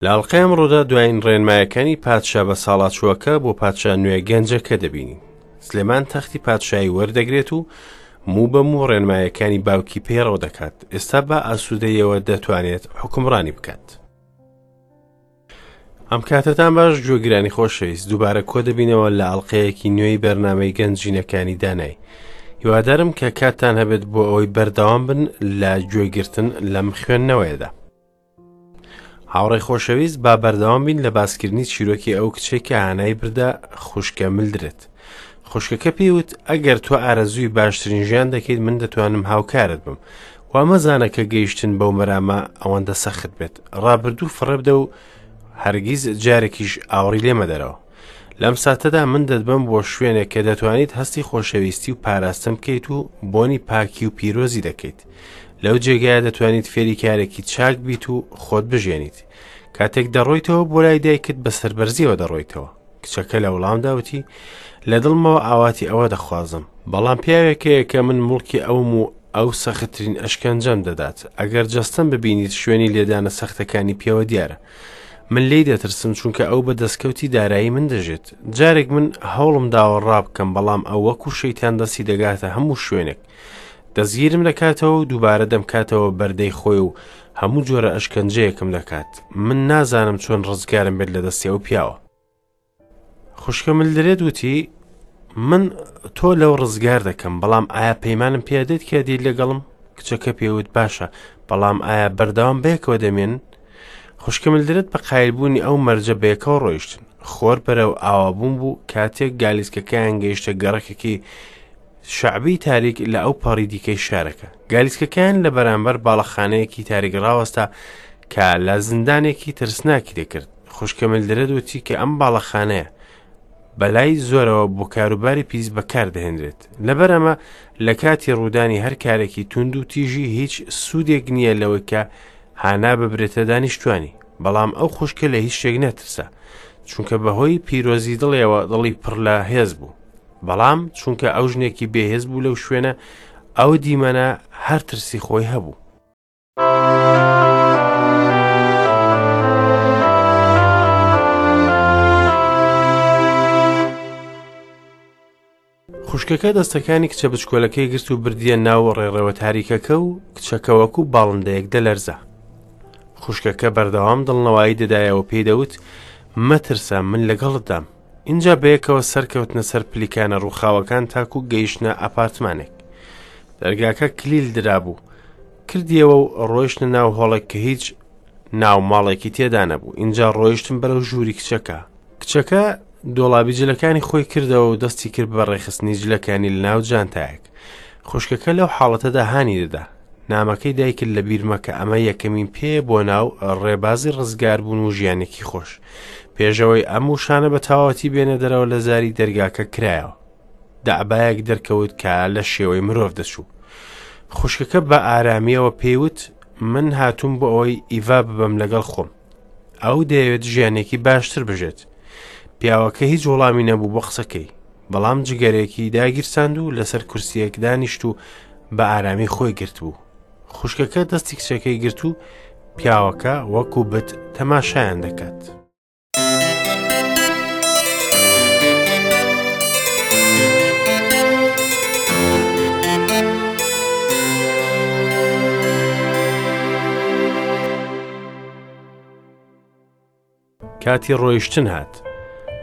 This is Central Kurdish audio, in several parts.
لە ئەڵقەی ئەمڕۆدا دوایین ڕێنمایەکانی پادشا بە ساڵاچووەکە بۆ پادشا نوێ گەنجەکە دەبینین. سلێمان تەختی پادشایی وەردەگرێت و موو بە موو ڕێنمایەکانی باوکی پەیڕەو دەکات. ئێستا بە ئاسوودەیەوە دەتوانێت حوکمڕانی بکات. ئەم کاتەتان باش گوێگرانی خۆشەویست دووبارە کۆ دەبینەوە لە ئەڵلقەیەکی نوێی بەرنمەی گەنجینەکانی دانای هیوادارم کە کاتتان هەبێت بۆ ئەوەی بەردەوام بن لە گوێگرتن لەم خوێندنەوەیەدا هاوڕێی خۆشەویست با بەردەوام بین لە باسکردنی چیرۆکی ئەو کچەی کە هانای بردە خوشکە ملدرێت خوشکەکە پێیوت ئەگەر تۆ ئارەزووی باشترین ژیان دەکەیت من دەتوانم هاوکارت بم وا مەزانە کە گەیشتن بەو مەرامە ئەوەندە سەخت بێت ڕابردوو فڕێبدە و هەرگیز جارێکیش ئاوڕی لێمەدەرەوە لەم ساتەدا من دەتبەم بۆ شوێنێک کە دەتوانیت هەستی خۆشەویستی و پاراستن بکەیت و بۆنی پاکی و پیرۆزی دەکەیت لەو جێگایە دەتوانیت فێری کارێکی چاک بیت و خۆت بژێنیت کاتێک دەڕۆیتەوە بۆ لای دایکت بە سەربەرزیەوە دەڕۆیتەوە کچەکە لە وڵامدا وتی لە دڵمەوە ئاواتی ئەوە دەخوازم بەڵام پیاوێک هەیە کە من موڵکی ئەوم و ئەو سەختترین ئەشکەنجەم دەدات ئەگەر جەستەم ببینیت شوێنی لێدانە سەختەکانی پێوە دیارە من لێی دەترسم چونکە ئەو بە دەستکەوتی دارایی من دەژێت جارێک من هەوڵم داوە ڕابکەم بەڵام ئەو وەکو شەیتان دەستی دەگاتە هەموو شوێنێک دەستگیرم دەکاتەوە و دووبارە دەمکاتەوە بەردەی خۆی و هەموو جۆرە ئەشکەنجەیەکم دەکات من نازانم چۆن ڕزگارم بێت لە دەستی ئەو پیاوە خوشکە ملدرێت وتی من تۆ لەو ڕزگار دەکەم بەڵام ئایا پەیمانم پێدێت کە دیت لەگەڵم کچەکە پێوت باشە بەڵام ئایا بەردەوام بەیەکەوە دەمێن خوشکە ملدرێت بە قایلبوونی ئەو مەرجە بەیەکەوە ڕۆیشتن خۆر بەرەو ئاوابوون بوو کاتێک گالیسکەکەیان گەیشتە گەڕەکێکی شەعبی تاریک لە ئەو پەڕی دیکەی شارەکە. گالیسکەکەیان لە بەرامبەر باڵەخانەیەکی تاریک ڕاوەستا کە لە زیندانێکی ترسناکی دەکرد. خوشکە ملدرێت وتی کە ئەم باڵەخانەیە بەلای زۆرەوە بۆ کاروباری پیس بەکار دەهێنرێت. لەبەر ئەمە لە کاتی ڕوودانی هەر کارێکی توند و تیژی هیچ سوودێک نییە لەوەی کە هانا ببرێتە دانیشتوانی. بەڵام ئەو خوشکە لە هیچ شتێک نەترسا. چونکە بەهۆی پیرۆزی دڵیەوە دڵی پڕ لە هێز بوو. بەڵام چونکە ئەو ژنێکی بێهێز بوو لەو شوێنە ئەو دیمەنە هەر ترسی خۆی هەبوو. خوشکەکە دەستەکانی کچە بچکۆلەکەی گرت و بردیە ناو ڕێڕەوە تاریکەکە و کچەکە وەکو باڵندەیەک دەلەرزا. خوشکەکە بەردەوام دڵنەوایی دەدایەوە پێی دەوت مەترسە من لەگەڵتدام. ئینجا بەیەکەوە سەرکەوتنە سەر پلیکانە ڕووخاوەکان تاکو گەیشتنە ئەپارتمانێک. دەرگاکە کلیل درابوو. کردیەوە و ڕۆیشتنە ناو هۆڵێک کە هیچ ناو ماڵێکی تێدا نەبوو. ئینجا ڕۆیشتن بەرەو ژووری کچەکە. کچەکە دۆڵابی جلەکانی خۆی کردەوە و دەستی کرد بە ڕێکخستنی جلەکانی لە ناو جانتایەک. خوشکەکە لەو حاڵەتەدا هانی دەدا. نامەکەی دایکت لەبیر مەکە ئەمە یەکەمین پێیە بۆ ناو ڕێبازی ڕزگاربوون و ژیانێکی خۆش. پێشەوەی ئەم وشانە بە تەواوەتی بێنە دەرەوە لە زاری دەرگاکە کرایەوە. دەعبایەک دەرکەوت کە لە شێوەی مرۆڤ دەچوو. خوشکەکە بە ئارامیەوە پێیوت من هاتووم بۆ ئەوەی ئیڤا ببەم لەگەڵ خۆم. ئەو دەیەوێت ژیانێکی باشتر بژێت. پیاوەکە هیچ وەڵامی نەبوو بۆ قسەکەی. بەڵام جگەرێکی داگیرساند و لەسەر کورسیەک دانیشت و بە ئارامی خۆی گرتبوو. خوشکەکە دەستی کچەکەی گرت و پیاوەکە وەکو بت تەماشایان دەکات. کاتی ڕۆیشتن هات.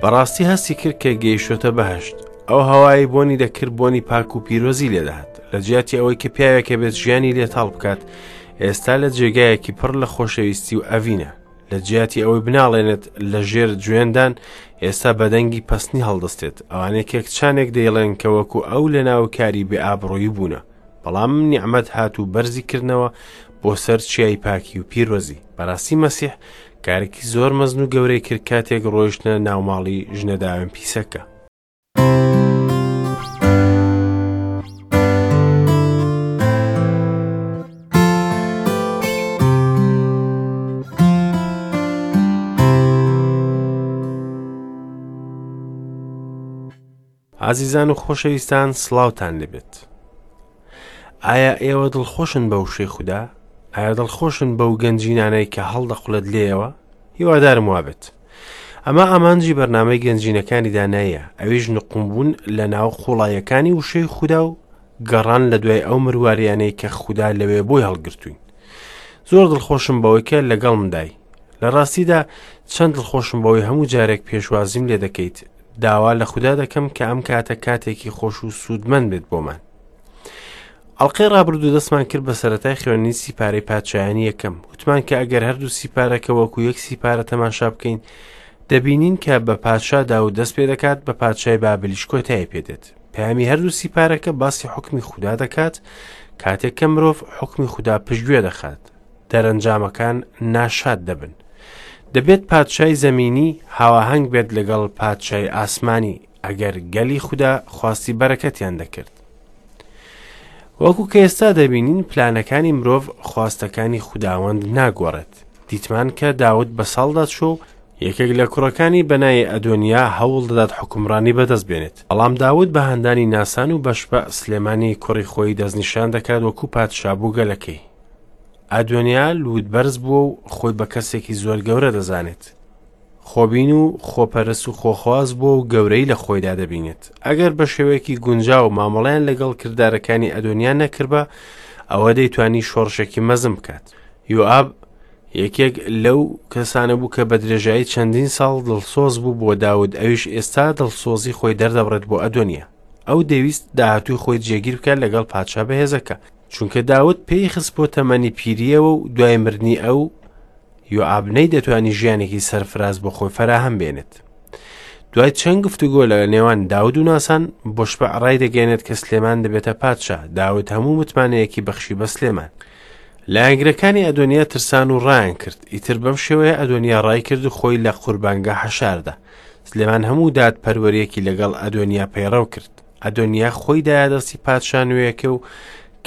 بەڕاستی هەستی کرد کە گەیشتۆتە بەهشت. ئەو هەوایەی بۆنی دەکرد بۆنی پاک و پیرۆزی لێدەهات. لە جیاتی ئەوەی کە پیاوێکە بێت ژیانی لێ تاڵ بکات، ئێستا لە جێگایەکی پڕ لە خۆشەویستی و ئەڤینە. لە جیاتی ئەوەی بناڵێنێت لە ژێر جوێندان، ئێستا بە دەنگی پەستنی هەڵدەستێت. ئەوانەی کە کچانێک دەیڵێن کە وەکو ئەو لە ناو کاری بێ ئابڕوویی بوونە. بەڵام نیعمەت هات و بەرزی کردنەوە بۆ سەر چیای پاکی و پیرۆزی. بەڕاستی مەسیح کارێکی زۆر مەزن و گەورەی کرد کاتێک ڕۆیشتنە ناوماڵی ژنە داوێن پیسەکە. ئازیزان و خۆشەویستان سڵاوتان لێبێت. ئایا ئێوە دڵخۆشن بە وشەی خودا؟ ئایا دڵخۆشن بەو گەنجینانەی کە هەڵدەقولێت لێیەوە؟ هیوادارم وابێت. ئەمە ئامانجی بەرنامەی گەنجینەکانی داناییە، ئەویش نقومبوون لە ناو قوڵاییەکانی وشەی خودا و گەڕان لە دوای ئەو مرواریانەی کە خودا لەوێ بۆی هەڵگرتووین. زۆر دڵخۆشم بەوەی کە لەگەڵمدای. لە ڕاستیدا چەند دڵخۆشم بەوەی هەموو جارێک پێشوازیم لێ دەکەیت. داوا لە خودا دەکەم کە ئەم کاتە کاتێکی خۆش و سوودمەند بێت بۆمان. ئەڵقەی ڕابردوو دەستمان کرد بە سەرەتای خوێندنی سیپارەی پادشایانی یەکەم. وتمان کە ئەگەر هەردوو سیپارەکە وەکو یەک سیپارە تەماشا بکەین، دەبینین کە بە پادشا داود دەست پێ دەکات، بە پادشای بابلیش کۆتایی پێدێت. پەیامی هەردوو سیپارەکە باسی حوکمی خودا دەکات، کاتێک کە مرۆڤ حوکمی خودا پشتگوێ دەخات، دەرەنجامەکان ناشاد دەبن. دەبێت پادشای زەمینی هاواهەنگ بێت لەگەڵ پادشای ئاسمانی، ئەگەر گەلی خودا خواستی بەرەکەتیان دەکرد. وەکو کە ئێستا دەبینین پلانەکانی مرۆڤ خواستەکانی خوداوەند ناگۆڕێت. دیتمان کە داود بە ساڵدا چوو و یەکێک لە کوڕەکانی بە ناوی ئەدۆنیا هەوڵ دەدات حوکمڕانی بەدەست بێنێت. بەڵام داود بە هاندانی ناسان و بەشبە سلێمانی کوڕی خۆی دەستنیشان دەکات وەکو پادشا بۆ گەلەکەی. ئەدۆنیا لووتبەرز بووە و خۆی بە کەسێکی زۆر گەورە دەزانێت. خۆبین و خۆپەرست و خۆخواز بووە و گەورەی لە خۆیدا دەبینێت. ئەگەر بە شێوەیەکی گونجاو مامەڵەیان لەگەڵ کردارەکانی ئەدۆنیا نەکردبا، ئەوە دەیتوانی شۆڕشێکی مەزن بکات. یۆئاب یەکێک لەو کەسانە بوو کە بە درێژایی چەندین ساڵ دڵسۆز بوو بۆ داود، ئەویش ئێستا دڵسۆزی خۆی دەردەبڕێت بۆ ئەدۆنیا. ئەو دەیویست داهاتووی خۆی جێگیر بکات لەگەڵ پادشا بەهێزەکە، چونکە داود پێی خست بۆ تەمەنی پیرییەوە و دوای مردنی ئەو یۆئاب نەیدەتوانی ژیانێکی سەرفراز بۆ خۆی فەراهەم بێنێت. دوای چەند گفتوگۆ لە نێوان داود و ناسان، بۆشبع ڕایدەگەیەنێت کە سلێمان دەبێتە پادشا. داود هەموو متمانەیەکی بەخشی بە سلێمان. لایەنگرەکانی ئەدۆنیا ترسان و ڕایان کرد. ئیتر بەم شێوەیە ئەدۆنیا ڕای کرد و خۆی لە قوربانگا حەشاردا. سلێمان هەموو دادپەروەرییەکی لەگەڵ ئەدۆنیا پەیڕەو کرد. ئەدۆنیا خۆی دایە دەستی پادشا نوێیەکە و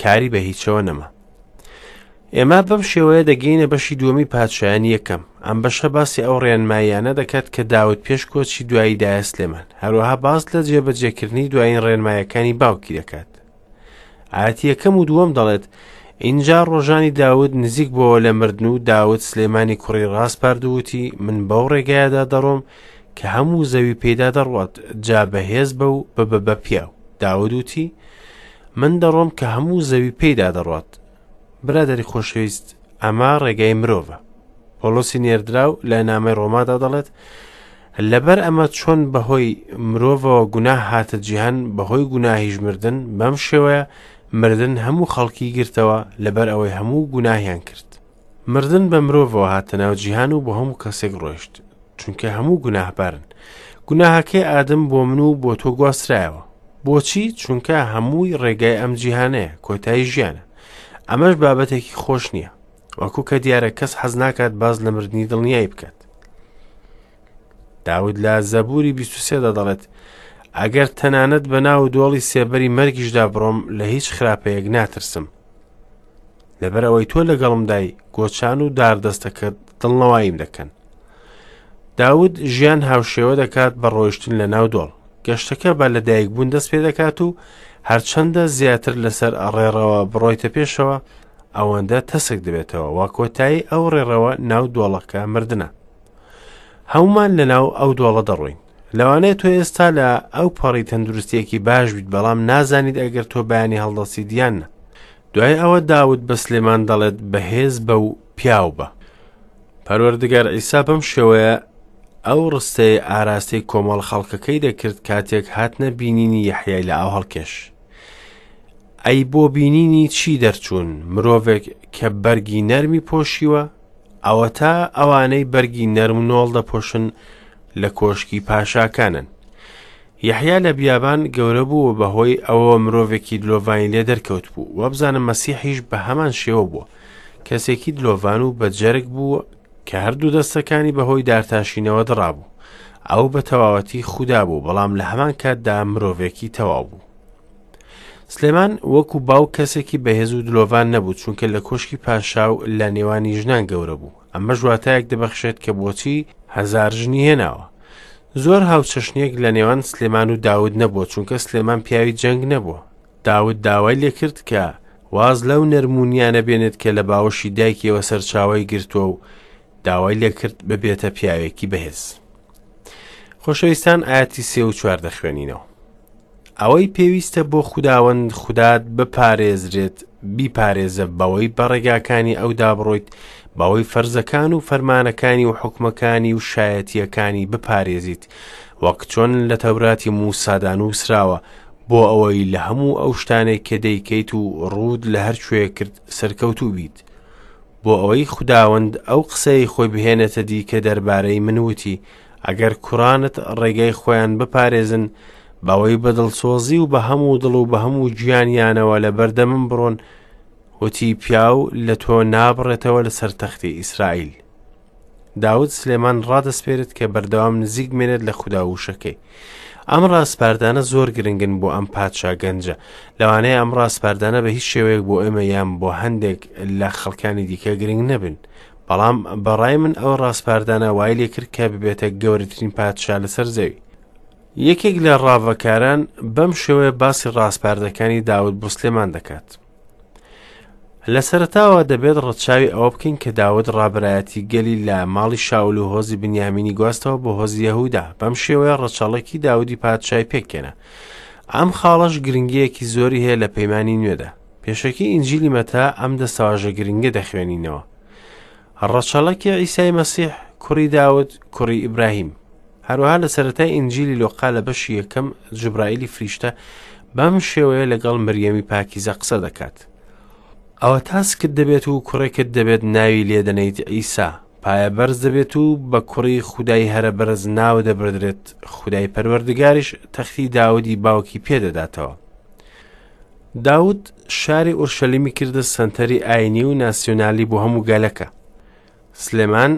کاری بە هیچەوە نەما. ئێمە بەم شێوەیە دەگەینە بەشی دووەمی پادشایانی یەکەم. ئەم بەشە باسی ئەو ڕێنماییانە دەکات کە داود پێش کۆچی دوایی دایە سلێمان. هەروەها باس لە جێبەجێکردنی دوایین ڕێنمایەکانی باوکی دەکات. ئایەتی یەکەم و دووەم دەڵێت، ئینجا ڕۆژانی داود نزیک بۆوە لە مردن و داود سلێمانی کوڕی ڕاسپارد و وتی، من بەو ڕێگایەدا دەڕۆم کە هەموو زەوی پێیدا دەڕوات، جا بەهێز بە و ببە بە پیاو. داود وتی، من دەڕۆم کە هەموو زەوی پێیدا دەڕوات. برادەری خۆشەویست، ئەمە ڕێگای مرۆڤە. پۆڵۆسی نێردراو لە نامەی ڕۆمادا دەڵێت، لەبەر ئەمە چۆن بەهۆی مرۆڤەوە گوناه هاتە جیهان، بەهۆی گوناهیش مردن، بەم شێوەیە مردن هەموو خەڵکی گرتەوە، لەبەر ئەوەی هەموو گوناهیان کرد. مردن بە مرۆڤەوە هاتە ناو جیهان و بۆ هەموو کەسێک ڕۆیشت، چونکە هەموو گوناهبارن. گوناهەکەی ئادەم بۆ من و بۆ تۆ گواسترایەوە. بۆچی؟ چونکە هەمووی ڕێگای ئەم جیهانەیە، کۆتایی ژیانە. ئەمەش بابەتێکی خۆش نییە. وەکو کە دیارە کەس حەز ناکات باس لە مردنی دڵنیایی بکات. داود لە زەبوری 23 دا دەڵێت ئەگەر تەنانەت بە ناو دۆڵی سێبەری مەرگیشدا بڕۆم لە هیچ خراپەیەک ناترسم. لەبەر ئەوەی تۆ لەگەڵمدای گۆچان و داردەستەکەت دڵنەواییم دەکەن. داود ژیان هاوشێوە دەکات بە ڕۆیشتن لە ناو دۆڵ. گەشتەکە بە لەدایکبوون دەست پێ دەکات و هەرچەندە زیاتر لەسەر ڕێڕەوە بڕۆیتە پێشەوە ئەوەندە تەسک دەبێتەوە و کۆتایی ئەو ڕێڕەوە ناو دۆڵەکە مردنە. هەمومان لە ناو ئەو دۆڵە دەڕۆین. لەوانەیە تۆ ئێستا لە ئەو پەڕی تەندروستیەکی باش بیت بەڵام نازانیت ئەگەر تۆ بەیانی هەڵدەستیت یان نا. دوای ئەوە داود بە سلێمان دەڵێت بەهێز بە و پیاو بە. پەروەردگار عیسا بەم شێوەیە ئەو ڕستەیە ئاراستەی کۆمەڵ خەڵکەکەی دەکرد کاتێک هاتنە بینینی یەحیای لە ئاو هەڵکێش. ئەی بۆ بینینی چی دەرچوون؟ مرۆڤێک کە بەرگی نەرمی پۆشیوە؟ ئەوەتا ئەوانەی بەرگی نەرم و نۆڵ دەپۆشن لە کۆشکی پاشاکانن. یەحیا لە بیابان گەورە بوو و بەهۆی ئەوەوە مرۆڤێکی دلۆڤانی لێ دەرکەوت بوو. وابزانم مەسیحیش بە هەمان شێوە بووە. کەسێکی دلۆڤان و بە جەرگ بوو کە هەردوو دەستەکانی بەهۆی دارتاشینەوە دڕابوو. ئەو بە تەواوەتی خودا بوو، بەڵام لە هەمان کاتدا مرۆڤێکی تەواو بوو. سلێمان وەکو باوک کەسێکی بەهێز و دلۆڤان نەبوو، چونکە لە کۆشکی پاشا و لە نێوانی ژنان گەورە بوو. ئەمەش واتایەک دەبەخشێت کە بۆچی هەزار ژنی هێناوە. زۆر هاوچەشنیەک لە نێوان سلێمان و داود نەبووە، چونکە سلێمان پیاوی جەنگ نەبووە. داود داوای لێکرد کە واز لەو نەرمونیانە بێنێت کە لە باوەشی دایکیەوە سەرچاوەی گرتووە و داوای لێکرد ببێتە پیاوێکی بەهێز. خۆشەویستان ئاەتی سێ و چوار دەخوێنینەوە. ئەوەی پێویستە بۆ خوداوەند خودات بپارێزرێت بیپارێزە بەوەی بە ڕێگاکانی ئەودا بڕۆیت بەوەی فەرزەکان و فەرمانەکانی و حوکمەکانی و شایەتییەکانی بپارێزیت وەک چۆن لە تەوراتی موسادا نووسراوە بۆ ئەوەی لە هەموو ئەو شتانەی کە دەیکەیت و ڕووت لە هەر کوێ کرد سەرکەوتوو بیت بۆ ئەوەی خوداوەند ئەو قسەی خۆی بهێنێتە دی کە دەربارەی من وتی ئەگەر کوڕانت ڕێگەی خۆیان بپارێزن بەوەی بە دڵسۆزی و بە هەموو دڵ و بە هەموو گیانیانەوە لە بەردەمم بڕۆن وتی پیاو لە تۆ نابڕێتەوە لەسەر تەختی ئیسرائیل. داود سلێمان ڕادەسپێرێت کە بەردەوام نزیک بمێنێت لە خودا و وشەکەی. ئەم ڕاسپاردانە زۆر گرنگن بۆ ئەم پادشا گەنجە. لەوانەیە ئەم ڕاسپاردانە بە هیچ شێوەیەک بۆ ئێمە یان بۆ هەندێک لە خەڵکانی دیکە گرنگ نەبن. بەڵام بەڕای من ئەو ڕاسپاردانە وای لێکرد کە ببێتە گەورەترین پادشا لەسەر زەوی. یەکێک لە ڕاڤەکاران بەم شێوەیە باسی ڕاسپاردەکانی داود بۆ سلێمان دەکات. لە سەرەتاوە دەبێت ڕەچاوی ئەوە بکەین کە داود ڕابەرایەتی گەلی لە ماڵی شاول و هۆزی بنیامینی گواستەوە بۆ هۆزی یەهودا، بەم شێوەیە ڕەچەڵەکی داودی پادشای پێکهێنا. ئەم خاڵەش گرنگییەکی زۆری هەیە لە پەیمانی نوێدا. پێشەکی ئینجیلی مەتا ئەم دەستەواژە گرنگە دەخوێنینەوە. ڕەچەڵەکی عیسای مەسیح کوڕی داود کوڕی ئیبراهیم. هەروەها لە سەرەتای ئینجیلی لۆقا لە بەشی یەکەم جوبرائیلی فریشتە بەم شێوەیە لەگەڵ مریەمی پاکیزە قسە دەکات. ئەوە تاسکت دەبێت و کوڕێکت دەبێت ناوی لێدەنێیت عیسا، پایە بەرز دەبێت و بە کوڕی خودای هەرە بەرز ناو دەبردرێت، خودای پەروەردگاریش تەختی داودی باوکی پێدەداتەوە. داود شاری ئورشەلیمی کردە سەنتەری ئاینی و ناسیۆنالی بۆ هەموو گەلەکە. سلێمان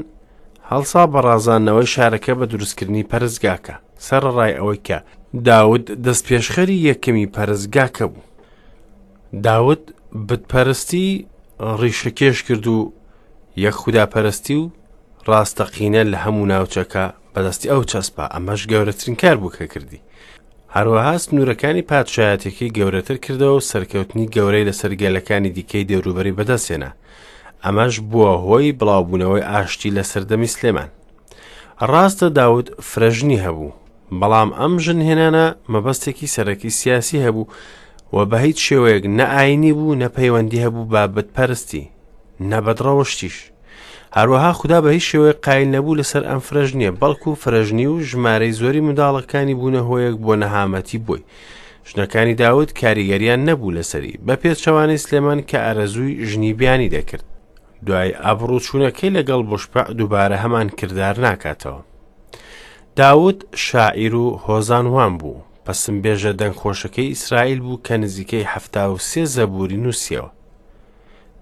هەڵسا بە ڕازاندنەوەی شارەکە بە دروستکردنی پەرستگاکە، سەرەڕای ئەوەی کە داود دەستپێشخەری یەکەمی پەرستگاکە بوو. داود بتپەرستی ڕیشەکێش کرد و یەک خوداپەرستی و ڕاستەقینە لە هەموو ناوچەکە بەدەستی ئەو چەسپا، ئەمەش گەورەترین کار بوو کە کردی. هەروەها سنوورەکانی پادشایەتیەکەی گەورەتر کردەوە و سەرکەوتنی گەورەی لەسەر گەلەکانی دیکەی دەوروبەری بەدەستهێنا. ئەمەش بووە هۆی بڵاوبوونەوەی ئاشتی لە سەردەمی سلێمان. ڕاستە داود فرەژنی هەبوو، بەڵام ئەم ژنهێنانە مەبەستێکی سەرەکی سیاسی هەبوو و بە هیچ شێوەیەک نە ئاینی بوو نە پەیوەندی هەبوو بە بتپەرستی نە بەدڕەوشتیش. هەروەها خودا بە هیچ شێوەیەک قایل نەبوو لەسەر ئەم فرەژنیە، بەڵکو فرەژنی و ژمارەی زۆری منداڵەکانی بوونە هۆیەک بۆ نەهامەتی بۆی. ژنەکانی داود کاریگەریان نەبوو لەسەری، بە پێچەوانەی سلێمان کە ئارەزووی ژنی بیانی دەکرد. دوای ئابڕووچوونەکەی لەگەڵ بوشپع دووبارە هەمان کردار ناکاتەوە. داود شاعیر و هۆزانوان بوو، پەسنبێژە دەنگخۆشەکەی ئیسرائیل بوو کە نزیکەی 73 زەبووری نووسیەوە.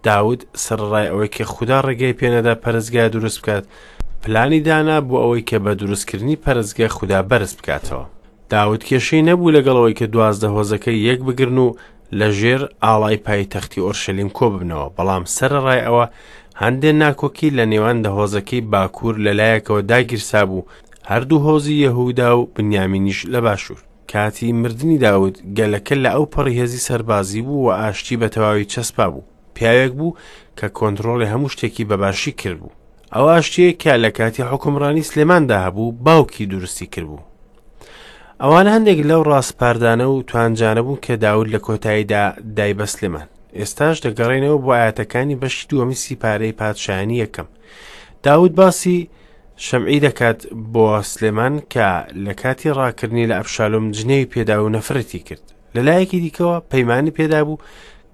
داود سەرەڕای ئەوەی کە خودا ڕێگەی پێنەدا پەرستگا دروست بکات، پلانی دانا بۆ ئەوەی کە بە دروستکردنی پەرستگە خودا بەرز بکاتەوە. داود کێشەی نەبوو لەگەڵ ئەوەی کە 12 هۆزەکە یەک بگرن و لە ژێر ئاڵای پایتەختی ئۆرشەلیم کۆببنەوە، بەڵام سەرەڕای ئەوە هەندێ ناکۆکی لە نێوان دە هۆزەکەی باکوور لە لایەکەوە داگیرسابوو، هەردوو هۆزی یەهودا و بنیامینیش لە باشوور. کاتی مردنی داود، گەلەکە لە ئەوپەڕی هێزی سەربازی بوو و ئاشتی بە تەواوی چەسپا بوو. پیاوێک بوو کە کۆنترۆڵی هەموو شتێکی بە باشی کردبوو. ئەو ئاشتییەی کە لە کاتی حوکمڕانی سلێماندا هەبوو، باوکی دروستی کردبوو. ئەوانە هەندێک لەو ڕاسپاردانە و توانجانە بوون کە داود لە کۆتاییدا دای بە سلێمان. ئێستاش دەگەڕێینەوە بۆ ئایەتەکانی بەشی دووەمی سیپارەی پادشایانی یەکەم. داود باسی شەمعی دەکات بۆ سلێمان کە لە کاتی ڕاکردنی لە ئەبشالۆم جنێوی پێدا و نەفرەتی کرد. لە لایەکی دیکەوە پەیمانی پێدابوو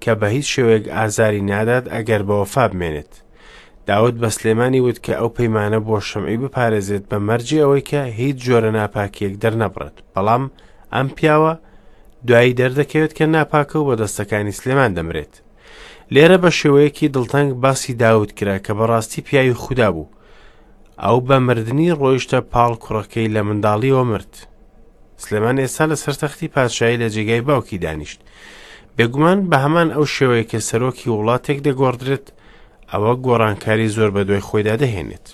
کە بە هیچ شێوەیەک ئازاری نادات ئەگەر بە وەفا بمێنێت. داود بە سلێمانی وت کە ئەو پەیمانە بۆ شەمعی بپارێزێت بە مەرجی ئەوەی کە هیچ جۆرە ناپاکیەک دەرنەبڕێت. بەڵام ئەم پیاوە دوایی دەردەکەوێت کە ناپاکە و بە دەستەکانی سلێمان دەمرێت. لێرە بە شێوەیەکی دڵتەنگ باسی داود کرا کە بەڕاستی پیاوی خودا بوو. ئەو بە مردنی ڕۆیشتە پاڵ کوڕەکەی لە منداڵیەوە مرد. سلێمان ئێستا لەسەر تەختی پادشایی لە جێگای باوکی دانیشت. بێگومان بە هەمان ئەو شێوەیە کە سەرۆکی وڵاتێک دەگۆڕدرێت، ئەوە گۆڕانکاری زۆر بە دوای خۆیدا دەهێنێت.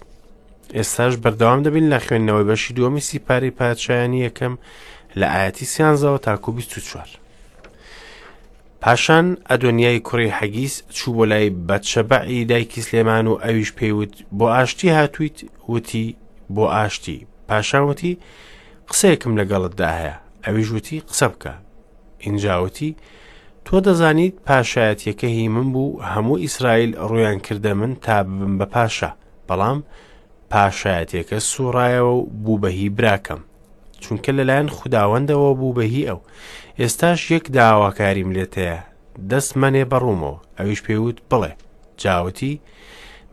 ئێستاش بەردەوام دەبین لە خوێندنەوەی بەشی دووەمی سیپارەی پادشایانی یەکەم لە ئایەتی سیانزەوە تاکو 24. پاشان ئەدۆنیای کوڕی حەگیس چوو بۆ لای بەتشەبەعی دایکی سلێمان و ئەویش پێی وت، بۆ ئاشتی هاتوویت؟ وتی، بۆ ئاشتی. پاشان وتی، قسەیەکم لەگەڵتدا هەیە. ئەویش وتی، قسە بکە. ئینجا وتی، تۆ دەزانیت پاشایەتیەکە هی من بوو، هەموو ئیسرائیل ڕوویان کردە من تا ببم بە پاشا، بەڵام پاشایەتیەکە سوڕایەوە و بوو بە هی براکەم. چونکە لەلایەن خوداوەندەوە بوو بە هی ئەو. ئێستاش یەک داواکاریم لێت هەیە، دەست مەنێ بە ڕوومەوە. ئەویش پێی وت، بڵێ. جا وتی،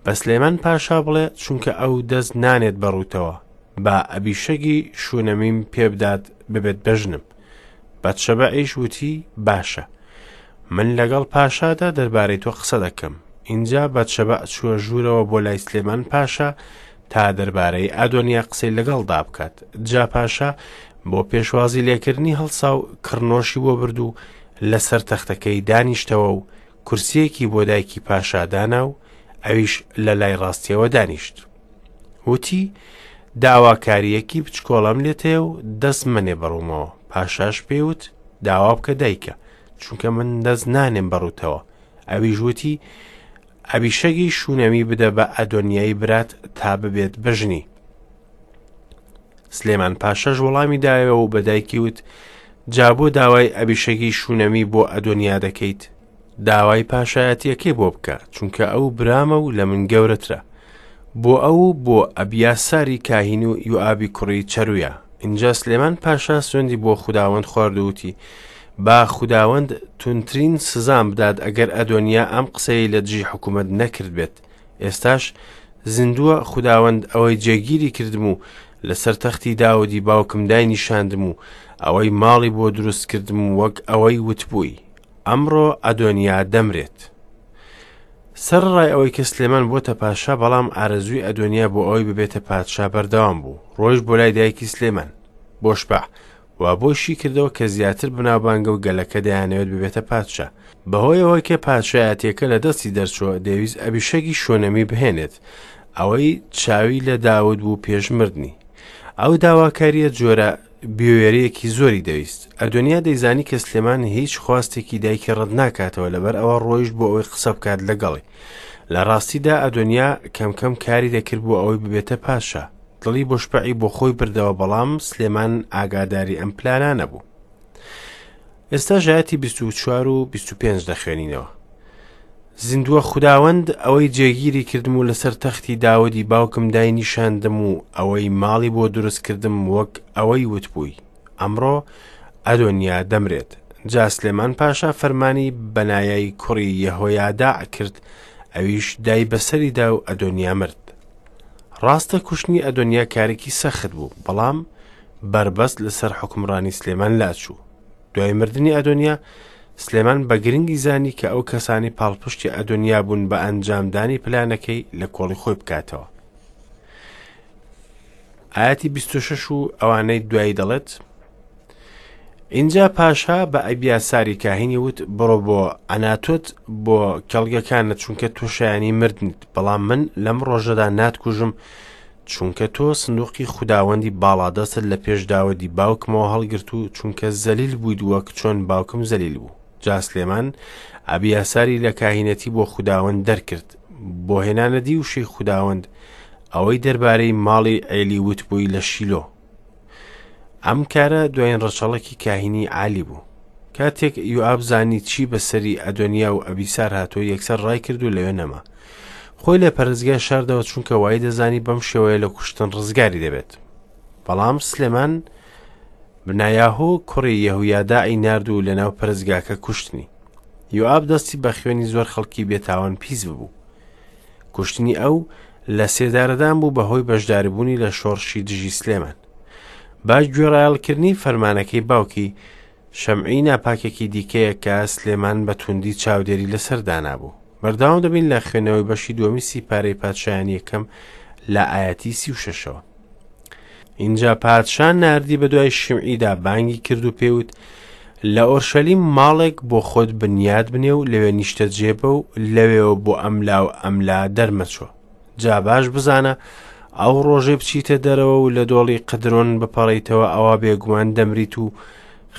بە سلێمان پاشا بڵێ، چونکە ئەو دەست نانێت بە ڕووتەوە، با ئەبیشەگی شونەمیم پێ بدات ببێت بە ژنم. بەتشەبەعیش وتی، باشە، من لەگەڵ پاشادا دەربارەی تۆ قسە دەکەم. ئینجا بەتشەبەع چووە ژوورەوە بۆ لای سلێمان پاشا تا دەربارەی ئادۆنیا قسەی لەگەڵدا بکات. جا پاشا بۆ پێشوازی لێکردنی هەڵسا و کڕنۆشی بۆ برد و لەسەر تەختەکەی دانیشتەوە و کورسییەکی بۆ دایکی پاشا دانا و ئەویش لە لای ڕاستیەوە دانیشت. وتی، داواکارییەکی بچکۆڵەم لێت هەیە و دەست مەنێ بەڕوومەوە. پاشاش پێی وت، داوا بکە دایکە، چونکە من دەست نانێم بەڕووتەوە. ئەویش وتی، ئەبیشەگی شونەمی بدە بە ئەدۆنیای برات تا ببێت بە ژنی. سلێمان پاشاش وەڵامی دایەوە و بە دایکی وت، جا بۆ داوای ئەبیشەگی شونەمی بۆ ئەدۆنیا دەکەیت؟ داوای پاشایەتیەکەی بۆ بکە، چونکە ئەو برامە و لە من گەورەترە. بۆ ئەو و بۆ ئەبیاساری کاهین و یوئابی کوڕی چەرویا. ئینجا سلێمان پاشا سوێندی بۆ خوداوەند خوارد و وتی، با خوداوەند توندترین سزام بدات ئەگەر ئەدۆنیا ئەم قسەیەی لە دژی حکوومەت نەکردبێت. ئێستاش زیندووە خوداوەند ئەوەی جێگیری کردم و لەسەر تەختی داودی باوکم داینیشاندم و ئەوەی ماڵی بۆ دروست کردم وەک ئەوەی وتبووی. ئەمڕۆ ئەدۆنیا دەمرێت. سەرەڕای ئەوەی کە سلێمان بۆتە پاشا، بەڵام ئارەزووی ئەدۆنیا بۆ ئەوەی ببێتە پادشا بەردەوام بوو. ڕۆیشت بۆ لای دایکی سلێمان، بۆشبەع، و بۆی شی کردەوە کە زیاتر بەناوبانگە و گەلەکە دەیانەوێت ببێتە پادشا. بەهۆی ئەوەی کە پادشایەتییەکە لە دەستی دەرچووە، دەیویست ئەبیشەگی شۆنەمی بهێنێت، ئەوەی چاوی لە داود بوو پێش مردنی. ئەو داواکارییە جۆرە بوێرییەکی زۆری دەویست. ئەدۆنیا دەیزانی کە سلێمان هیچ خواستێکی دایکی ڕەت ناکاتەوە، لەبەر ئەوە ڕۆیشت بۆ ئەوەی قسە بکات لەگەڵی. لە ڕاستیدا ئەدۆنیا کەم کەم کاری دەکرد بۆ ئەوەی ببێتە پادشا. دڵی بۆشبەعی بۆ خۆی بردەوە، بەڵام سلێمان ئاگاداری ئەم پلانانە بوو. ئێستا ژایەتی 24 و 25 دەخوێنینەوە. زیندووە خوداوەند ئەوەی جێگیری کردم و لەسەر تەختی داودی باوکم داینیشاندم و ئەوەی ماڵی بۆ دروست کردم وەک ئەوەی وتبووی ئەمڕۆ ئەدۆنیا دەمرێت جا سلێمان پاشا فەرمانی بەنایای کوڕی یەهۆیاداع کرد ئەویش دای بەسەریدا و ئەدۆنیا مرد ڕاستە کوشتنی ئەدۆنیا کارێکی سەخت بوو بەڵام بەربەست لەسەر حوکمڕانی سلێمان لاچوو دوای مردنی ئەدۆنیا، سلێمان بە گرنگی زانی کە ئەو کەسانی پاڵپشتی ئەدۆنیا بوون بە ئەنجامدانی پلانەکەی لە کۆڵی خۆی بکاتەوە. ئاەتی 26 و ئەوانەی دوایی دەڵێت اینجا پاشا بە ئەبیاساری کاهینی وت بڕۆ بۆ ئەناتۆت بۆ کێڵگەکانت چونکە تۆ شایانی مردنیت بەڵام من لەم ڕۆژەدا ناتکوژم چونکە تۆ سندوقی خوداوەندی باڵادەستت لە پێش داودی باوکمەوە هەڵگرت و چونکە زەلیل بوویت وەک چۆن باوکم زەلیل بوو. جا سلێمان ئەبیاساری لە کاهینەتی بۆ خوداوەند دەرکرد، بۆ هێنانەدی وشەی خوداوەند، ئەوەی دەربارەی ماڵی عێلی وتبووی لە شیلۆ. ئەم کارە دوایین ڕەچەڵەکی کاهینی عالی بوو. کاتێک یوئاب زانی چی بەسەری ئەدۆنیا و ئەبیسار هاتووە یەکسەر ڕایکرد و لەوێ نەما. خۆی لە پەرستگا شاردەوە چونکە وای دەزانی بەم شێوەیە لە کوشتن ڕزگاری دەبێت. بەڵام سلێمان بنایاهۆ کوڕی یەهویاداعی نارد و لەناو پەرستگاکە کوشتنی. یوئاب دەستی بە خوێنی زۆر خەڵکی بێتاوان پیس ببوو. کوشتنی ئەو لە سێدارەدان بوو بەهۆی بەشداریبوونی لە شۆڕشی دژی سلێمان. بە گوێڕایەڵکردنی فەرمانەکەی باوکی، شەمعی ناپاکێکی دیکەیە کە سلێمان بە توندی چاودێری لەسەر دانابوو. بەردەوام دەبین لە خوێندنەوەی بەشی دووەمی سیپارەی پادشایانی یەکەم لە ئایەتی 36ەوە. ئینجا پادشا ناردی بە دوای شیمعیدا بانگی کرد و پێوت لە ئۆرشەلیم ماڵێک بۆ خۆت بنیاد بنێ و لەوێ نیشتەجێ بە و لەوێوە بۆ ئەملا و ئەملا دەرمەچۆ. جا باش بزانە ئەو ڕۆژەی بچیتە دەرەوە و لە دۆڵی قدرۆن بپەڕیتەوە ئەوا بێگومان دەمریت و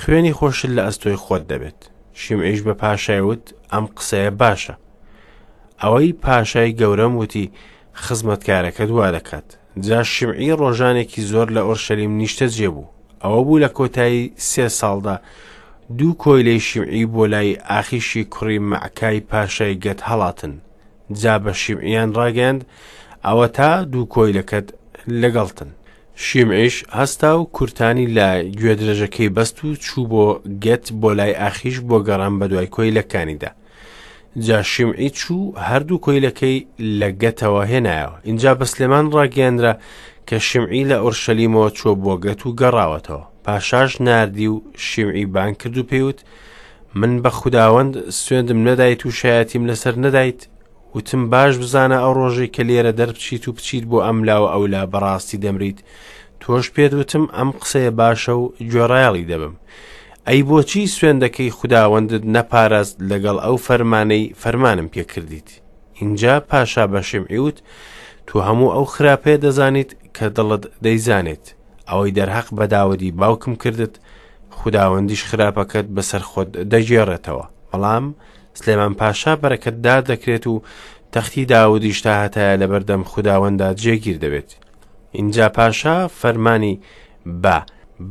خوێنی خۆشت لە ئەستۆی خۆت دەبێت. شیمعیش بە پاشای وت، ئەم قسەیە باشە. ئەوەی پاشای گەورەم وتی، خزمەتکارەکەت وا دەکات. جا شیمعی ڕۆژانێکی زۆر لە ئۆرشەلیم نیشتەجێ بوو. ئەوە بوو لە کۆتایی سێ ساڵدا دوو کۆیلەی شیمعی بۆ لای ئاخیشی کوڕی مەعکای پاشای گەت هەڵاتن. جا بە شیمعیان ڕاگەیاند، ئەوەتا دوو کۆیلەکەت لەگەڵتن. شیمعیش هەستا و کورتانی لە گوێدرێژەکەی بەست و چوو بۆ گەت بۆ لای ئاخیش بۆ گەڕان بەدوای کۆیلەکانیدا. جا شیمعی چوو هەردوو کۆیلەکەی لە گەتەوە هێنایەوە. ئینجا بە سلێمان ڕاگەیەنرا کە شیمعی لە ئۆرشەلیمەوە چووە بۆ گەت و گەڕاوەتەوە. پاشاش ناردی و شیمعی بانگ کرد و پێی وت، من بە خوداوەند سوێندم نەدایت و شایەتیم لەسەر نەدایت، وتم باش بزانە ئەو ڕۆژەی کە لێرە دەربچیت و بچیت بۆ ئەم لا و ئەولا بەڕاستی دەمریت، تۆش پێت وتم ئەم قسەیە باشە و گوێڕایەڵی دەبم. ئەی بۆچی سوێندەکەی خوداوەندت نەپاراست لەگەڵ ئەو فەرمانەی فەرمانم پێ کردیت؟ ئینجا پاشا بە شیمعی وت، تۆ هەموو ئەو خراپەیە دەزانیت کە دڵت دەیزانێت، ئەوەی دەرهەق بە داودی باوکم کردت، خوداوەندیش خراپەکەت بەسەر خۆت دەگێڕێتەوە. بەڵام سلێمان پاشا بەرەکەتدار دەکرێت و تەختی داودیش تا هەتایە لەبەردەم خوداوەندا جێگیر دەبێت. ئینجا پاشا فەرمانی بە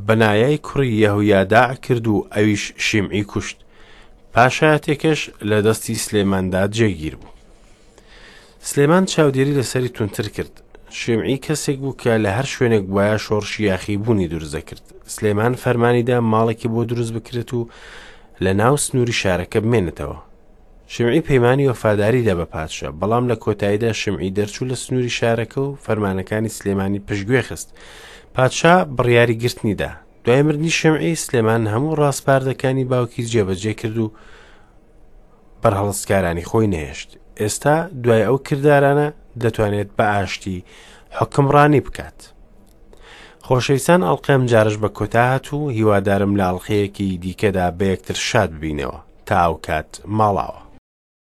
بەنایای کوڕی یەهویاداع کرد و ئەویش شیمعی کوشت. پاشایەتیەکەش لە دەستی سلێماندا جێگیر بوو. سلێمان چاودێری لەسەری توندتر کرد. شیمعی کەسێک بوو کە لە هەر شوێنێک بوایە شۆڕشی یاخیبوونی دروست دەکرد. سلێمان فەرمانی دا ماڵێکی بۆ دروست بکرێت و لە ناو سنووری شارەکە بمێنێتەوە. شمعی پەیمانی وەفاداری دا بە پادشا، بەڵام لە کۆتاییدا شمعی دەرچوو لە سنووری شارەکە و فەرمانەکانی سلێمانی پشتگوێ خست. پادشا بڕیاری گرتنی دا. دوای مردنی شمعی، سلێمان هەموو ڕاسپاردەکانی باوکی جێبەجێ کرد و بەرهەڵستکارانی خۆی نەهێشت. ئێستا دوای ئەو کردارانە دەتوانێت بە ئاشتی حوکمڕانی بکات. خۆشەویستان ئەڵقەی ئەمجارەش بە کۆتا هات و هیوادارم لە ئەڵقەیەکی دیکەدا بە یەکتر شاد ببینەوە. تا ئەو کات ماڵاوە.